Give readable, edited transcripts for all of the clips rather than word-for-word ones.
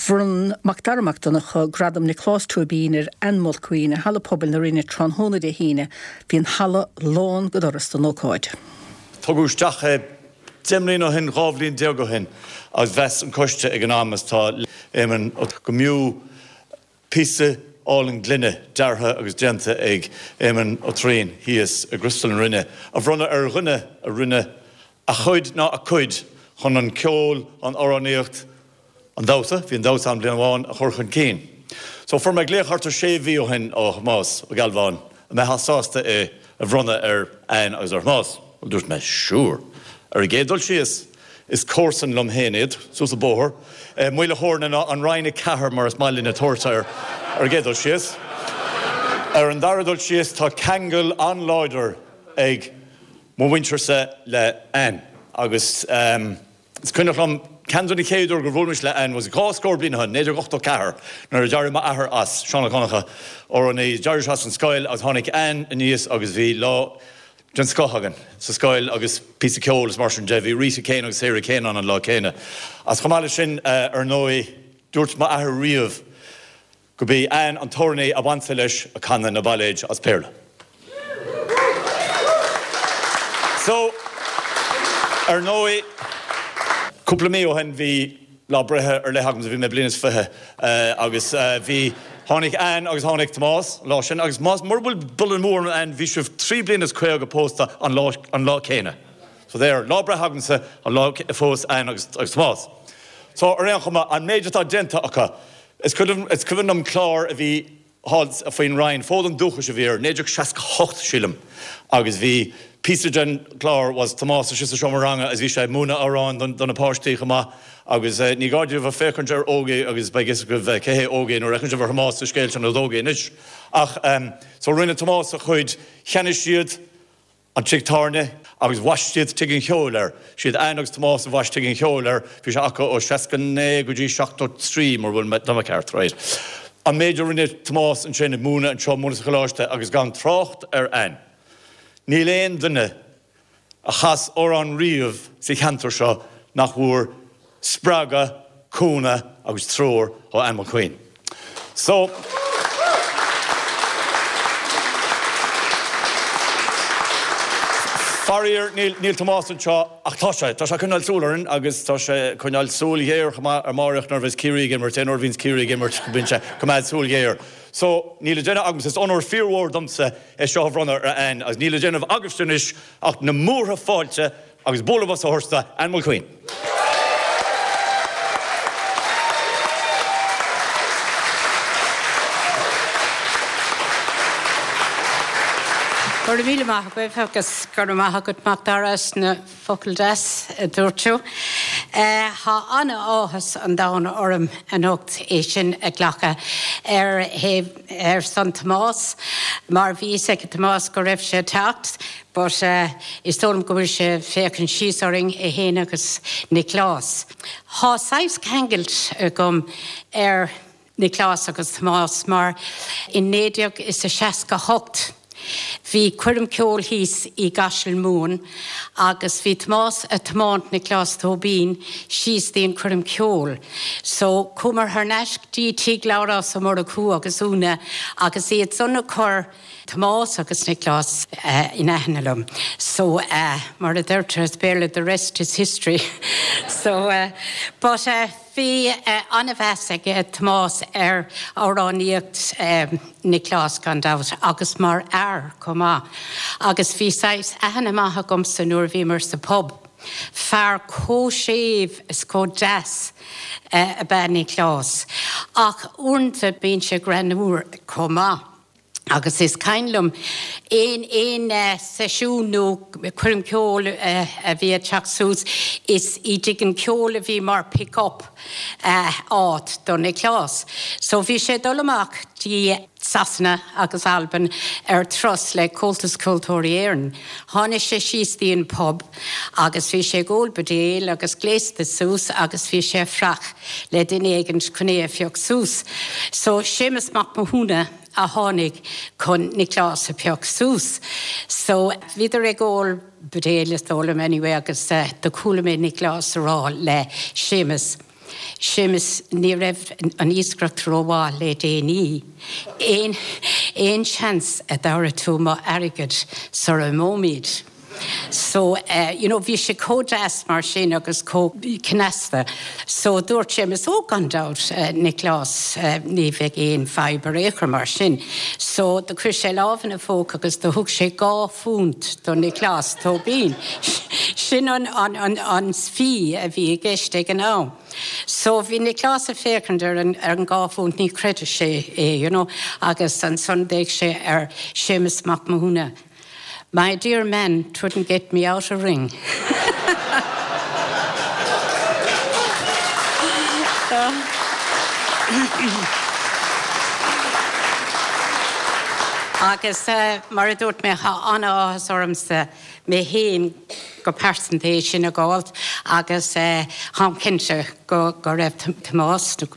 Bhronn Macdara Mac Donncha Gradam Nioclás Tóibín ar Ann Mulqueen i Halla Pobail na Rinne tráthnóna Dé hAoine. Bhí an halla lán go doras don ócáid. Tugadh isteach é 10 mbliana ó shin, 12 bhliain ó shin agus mheas an coiste ag an am, is tá Éamonn Ó go mb'fhiú píosa álainn gloine deartha agus déanta ag Éamonn Ó Troian thíos i gCriostal na Rinne a bhronnadh ar dhuine a rinne a chuid ná a cuid chun an ceol, an amhránaíocht, an damhsa, bhí an damhsa ann bliain amháin, a chur chun cinn. So fuair mé glaoch thart ar sé mhí ó shin ó Thomás Ó Gealbháin an mbeifeá sásta é a bhronnadh ar Ann agus ar Thomás. Bhuel dúirt mé sure. Ar an gcéad dul síos, is comharsan liom féin iad, suas an bóthar, Maoil a' Chóirne ná an Rinn 4 mar is maith linne tabhairt air ar an gcéad dul síos. Ar an dara dul síos tá ceangal an-láidir ag mo mhuintirse le Ann agus is cuimhneach liom ceann de na chéad uair gur bhuail mise le Ann was dhá scór bliain ó shin, 1984, nuair a d'éirigh m'athair as, Seán Ó Donnchadha, amhránaí, d'éirigh sé as an scoil agus tháinig Ann aníos agus bhí lá den scoth againn sa scoil agus píosa ceoil is mar sin de. Bhí Rita Kane agus Sarah Kane ann an lá céanna. Agus chomh maith leis sin, ar ndóigh, dúirt m'athair riamh go b'í Ann an t-amhránaí ab ansa leis ag canadh na bailéid as Béarla. So, ar ndóigh, cúpla mí ó shin bhí lá breithe ar leith agamsa, bhí mé bliain is 20 agus bhí, tháinig Ann agus tháinig Tomás an lá sin agus más, mura bhfuil buille amú orm Ann, bhí sibh trí bliana is 50 pósta an lá, an lá céanna. So there, lá breithe agamsa an lá a phós Ann agus, agus Tomás. So ar aon chuma, an méid atá déanta acu, is cuimhin, is cuimhin liom clár a bhí thall faoin Rinn, Fód an Dúchais a bhí air, 1968 sílim, agus bhí píosa den chlár was Tomás istigh sa seomra ranga agus bhí sé ag múineadh amhráin do na páistí chomh maith agus ní gá daoibh a féachaint ar Ógie agus beidh fhios agaibh cé hé Ógie nuair a fheiceann sibh ar Thomás sa scéal sin is Ógie anois. Ach so rinne Tomás a chuid, cheannaigh siad an tigh tábhairne agus bhaist siad Tigh an Cheoil air. Siad Ann agus Tomás a bhaist Tigh an Cheoil air. Bhí sé acu ó 69 go dtí 73 mura bhfuil mé, tá mé ceart, right. An méid a rinne Tomás ansin ag múineadh anseo, múineadh sa choláiste agus gan trácht ar Ann. Níl aon duine a chas amhrán riamh sa cheantar seo nach bhfuair spreagadh, cúnamh agus treoir ó Ann Mulqueen. So. Faraor, níl, níl Tomás anseo, ach tá sé, tá sé ag coinneáil súil orainn agus tá sé ag coinneáil súil ghéar chomh maith ar Máireach nuair a bheas Ciarraí ag imirt, aon uair a bhíonns Ciarraí ag imirt bíonn sé ag coimeád súil ghéar. So, níl le déanamh agamsa, is onóir fíormhór domsa é seo a bhronnadh ar Ann agus níl le déanamh agaibhse anois ach na múrtha fáilte Agus bualadh bos a thabhairt do Ann Mulqueen. Go raibh míle maith agaibh agus go raibh maith agat Macdara as na focail deas a dúirt tú. Tá an-áthas an domhain orm anocht é sin a ghlacadh ar thaobh ar son Tomás mar bhí fhios ag Tomás go raibh sé ag teacht. But is dóigh liom go bhfuil sé ag féachaint síos orainn, é fhéin agus Nioclás. Thá saghas ceangailt agam ar Nioclás agus Tomás mar in 1968 bhí coirm ceoil thíos i gCaiseal Mumhan agus bhí Tomás a' tiomáint Nioclás Tóibín síos dtí an coirm ceoil. So chuamar thar n-ais dtí tigh Labhrás Ó Murchú agus Úna agus iad san a chur Tomás agus Nioclás in aithne liom. So mar a deirtear as Béarla the rest is history. So but bhí an-mheas ag Tomás ar amhránaíocht Nioclás gan dabht agus mar fhear chomh maith. Agus bhí saghas aithne maith agamsa nuair a bhíomar sa pub. Fear chomh séimh is chomh deas ab ea Nioclás. Ach uaireanta bíonn sé greannmhar chomh maith. Agus is cuimhin liom aon aon seisiún nó coirm ceoil a bhí ag teacht suas, is i dtigh an cheoil a bhí mar pick up áit do Nioclás. So bhí sé ag dul amach dtí Sasana agus Albain ar turas le Comhaltas Ceoltóirí Éireann. Tháinig sé síos dtí an pub agus bhí sé ag ól buidéal agus gléasta suas agus bhí sé ag fuireach le duine éigint chun é a phioc suas. So Séamus Mac Mathúna a tháinig chun Nioclás a phioc suas. So bhíodar ag ól buidéal is dóigh liom anyway agus do chuala mé Nioclás a rá le Séamus. Séamus, ní raibh an iascaireacht rómhaith le déanaí. Aon, aon seans a dtabharfaidh tú mo airgead sara imeoimid? So, you know, bhí sé chomh deas mar sin agus chomh cneasta. So, dúirt Séamus, oh, gan dabht, Nioclás, ní bheidh aon fadhb ar aon chor mar sin. So, do chuir sé lámh ina phóca agus do thug sé £2 do Nioclás Tóibín. Sin an, an, an, an fee a bhí i gceist ag an am. So, bhí Nioclás ag féachaint ar an, ar an £2, ní chreidfeadh sé é, you know, agus ansan d'fhéach sé ar Séamus Mac Mathúna. My dear man, 'twouldn't get me out a ring. Agus mar a dúirt mé, tá an-áthas ormsa mé féin go pearsanta é sin a dh'fháilt agus táim cinnte go raibh Tomás. Tá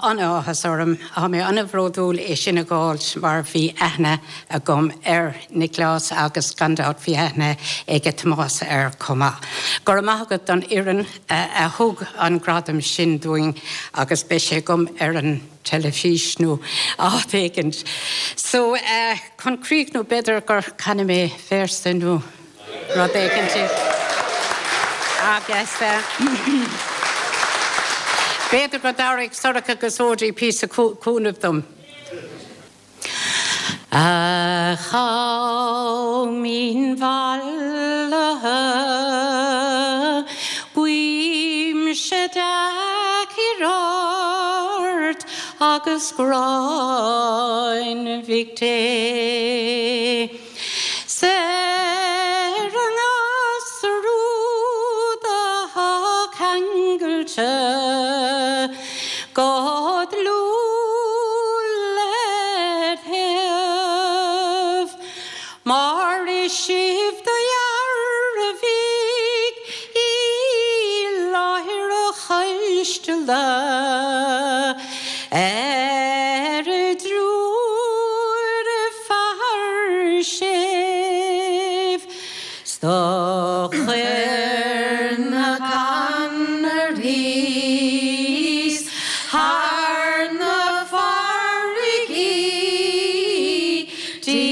an-áthas orm, tá mé an-bhródúil é sin a dh'fháilt mar bhí aithne agam ar Nioclás agus gan dabht bhí aithne aige Tomás air chomh maith. Go raibh maith agat don fhoireann a thug an gradam sin dúinn agus beidh sé agam ar an teilifís nó áit éigint. So, chun críochnú b'fhéidir gur canfaidh mé véarsa nó rud éigin agus b'fhéidir go dtabharfaidh Sorcha agus Odí píosa cúnaimh dom. A Chaoimhín mhallaithe, guímse dea-chior ort agus gráin Mhic Dé. 'S ar an ngasúr úd athá ceangailte go dlúth led thaobh, mar is sibh do dhearbhaigh i láthair a choisteala ar a dtriúr fear séimh 's do chuir na Conarthaí 's thar na farraigí 'dtí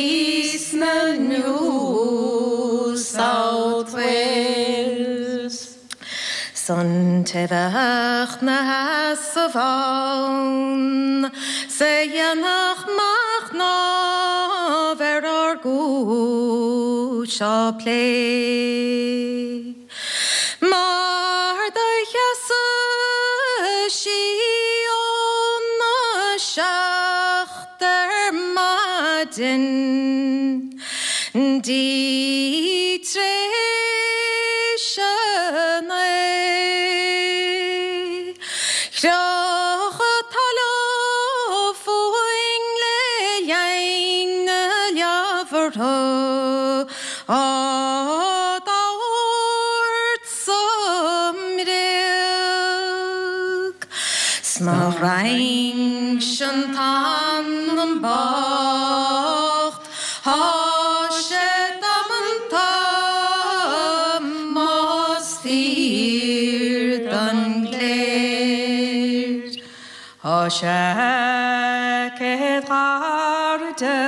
sna New South Wales. 'S an té bheadh 'na sheasamh ann 's a dhéanfadh machnamh ar ár gcúis á plé. Mar do sheasadh sí óna seacht ar maidin 'dtí t'réis a naoi. Chroch talamh fúinn le linn na leabhartha á dtabhairt sa mbréag. 'S má roinnse an t-anam bocht Tá sé damanta más fíor don gcléir. Tá sé céad gairide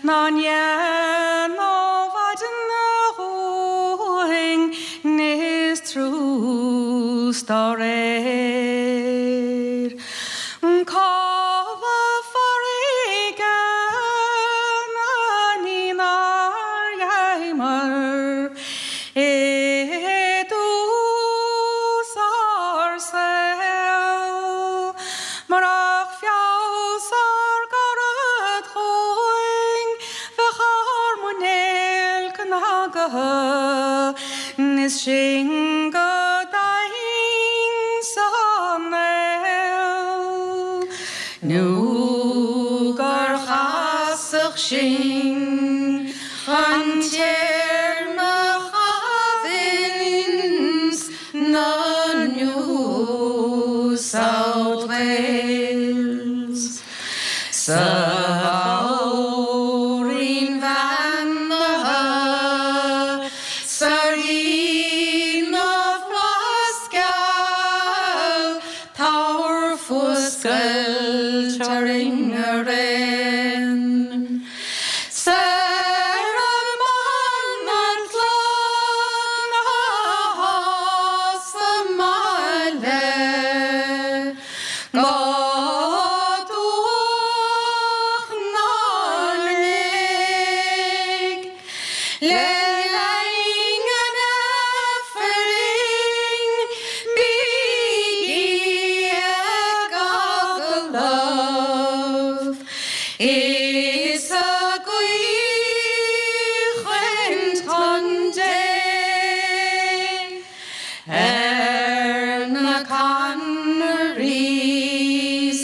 ná ndéanfadh maidin dhúinn níos trús dá réir. Codladh farraige na ní nár gheibheamar i dtús ár saoil. Murach feabhas ár gcarad chugainn bheadh ár muinéal cnagaithe is sinn go daingean sa néal nó gur chasadh sinn chun téarma a chaitheamh ins na New South Wales. Sa Mhór-Roinn bheannaithe, sa Rí na bhFlaitheas geal. Scoilt orainn araon. Soir amach an chlann atá sa mbaile Go Dumhach na Léig Le linn an Aifrinn bígí ag agallamh Is ag caoinchead chun Dé ar na Connerys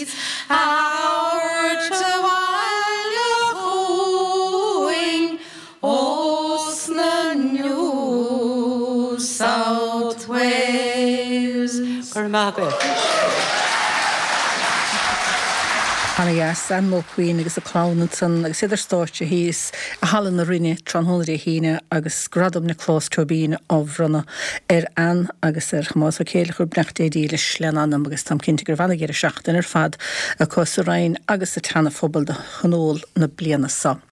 a thabhairt abhaile chugainn ós na New South Wales. Go raibh maith agat. Ana dheas, Ann Mulqueen agus a clann ansan agus iad ar stáitse thíos i Halla na Rinne tráthnóna Dé hAoine agus Gradam Nioclás Tóibín á bhronnadh ar Ann agus ar Thomás Ó Céileachair, beannacht Dé dílis lena anam agus táim cinnte go raibh ana-dheireadh seachtaine ar fad acu sa Rinn agus sa tSeana Phobal do thionól na bliana seo.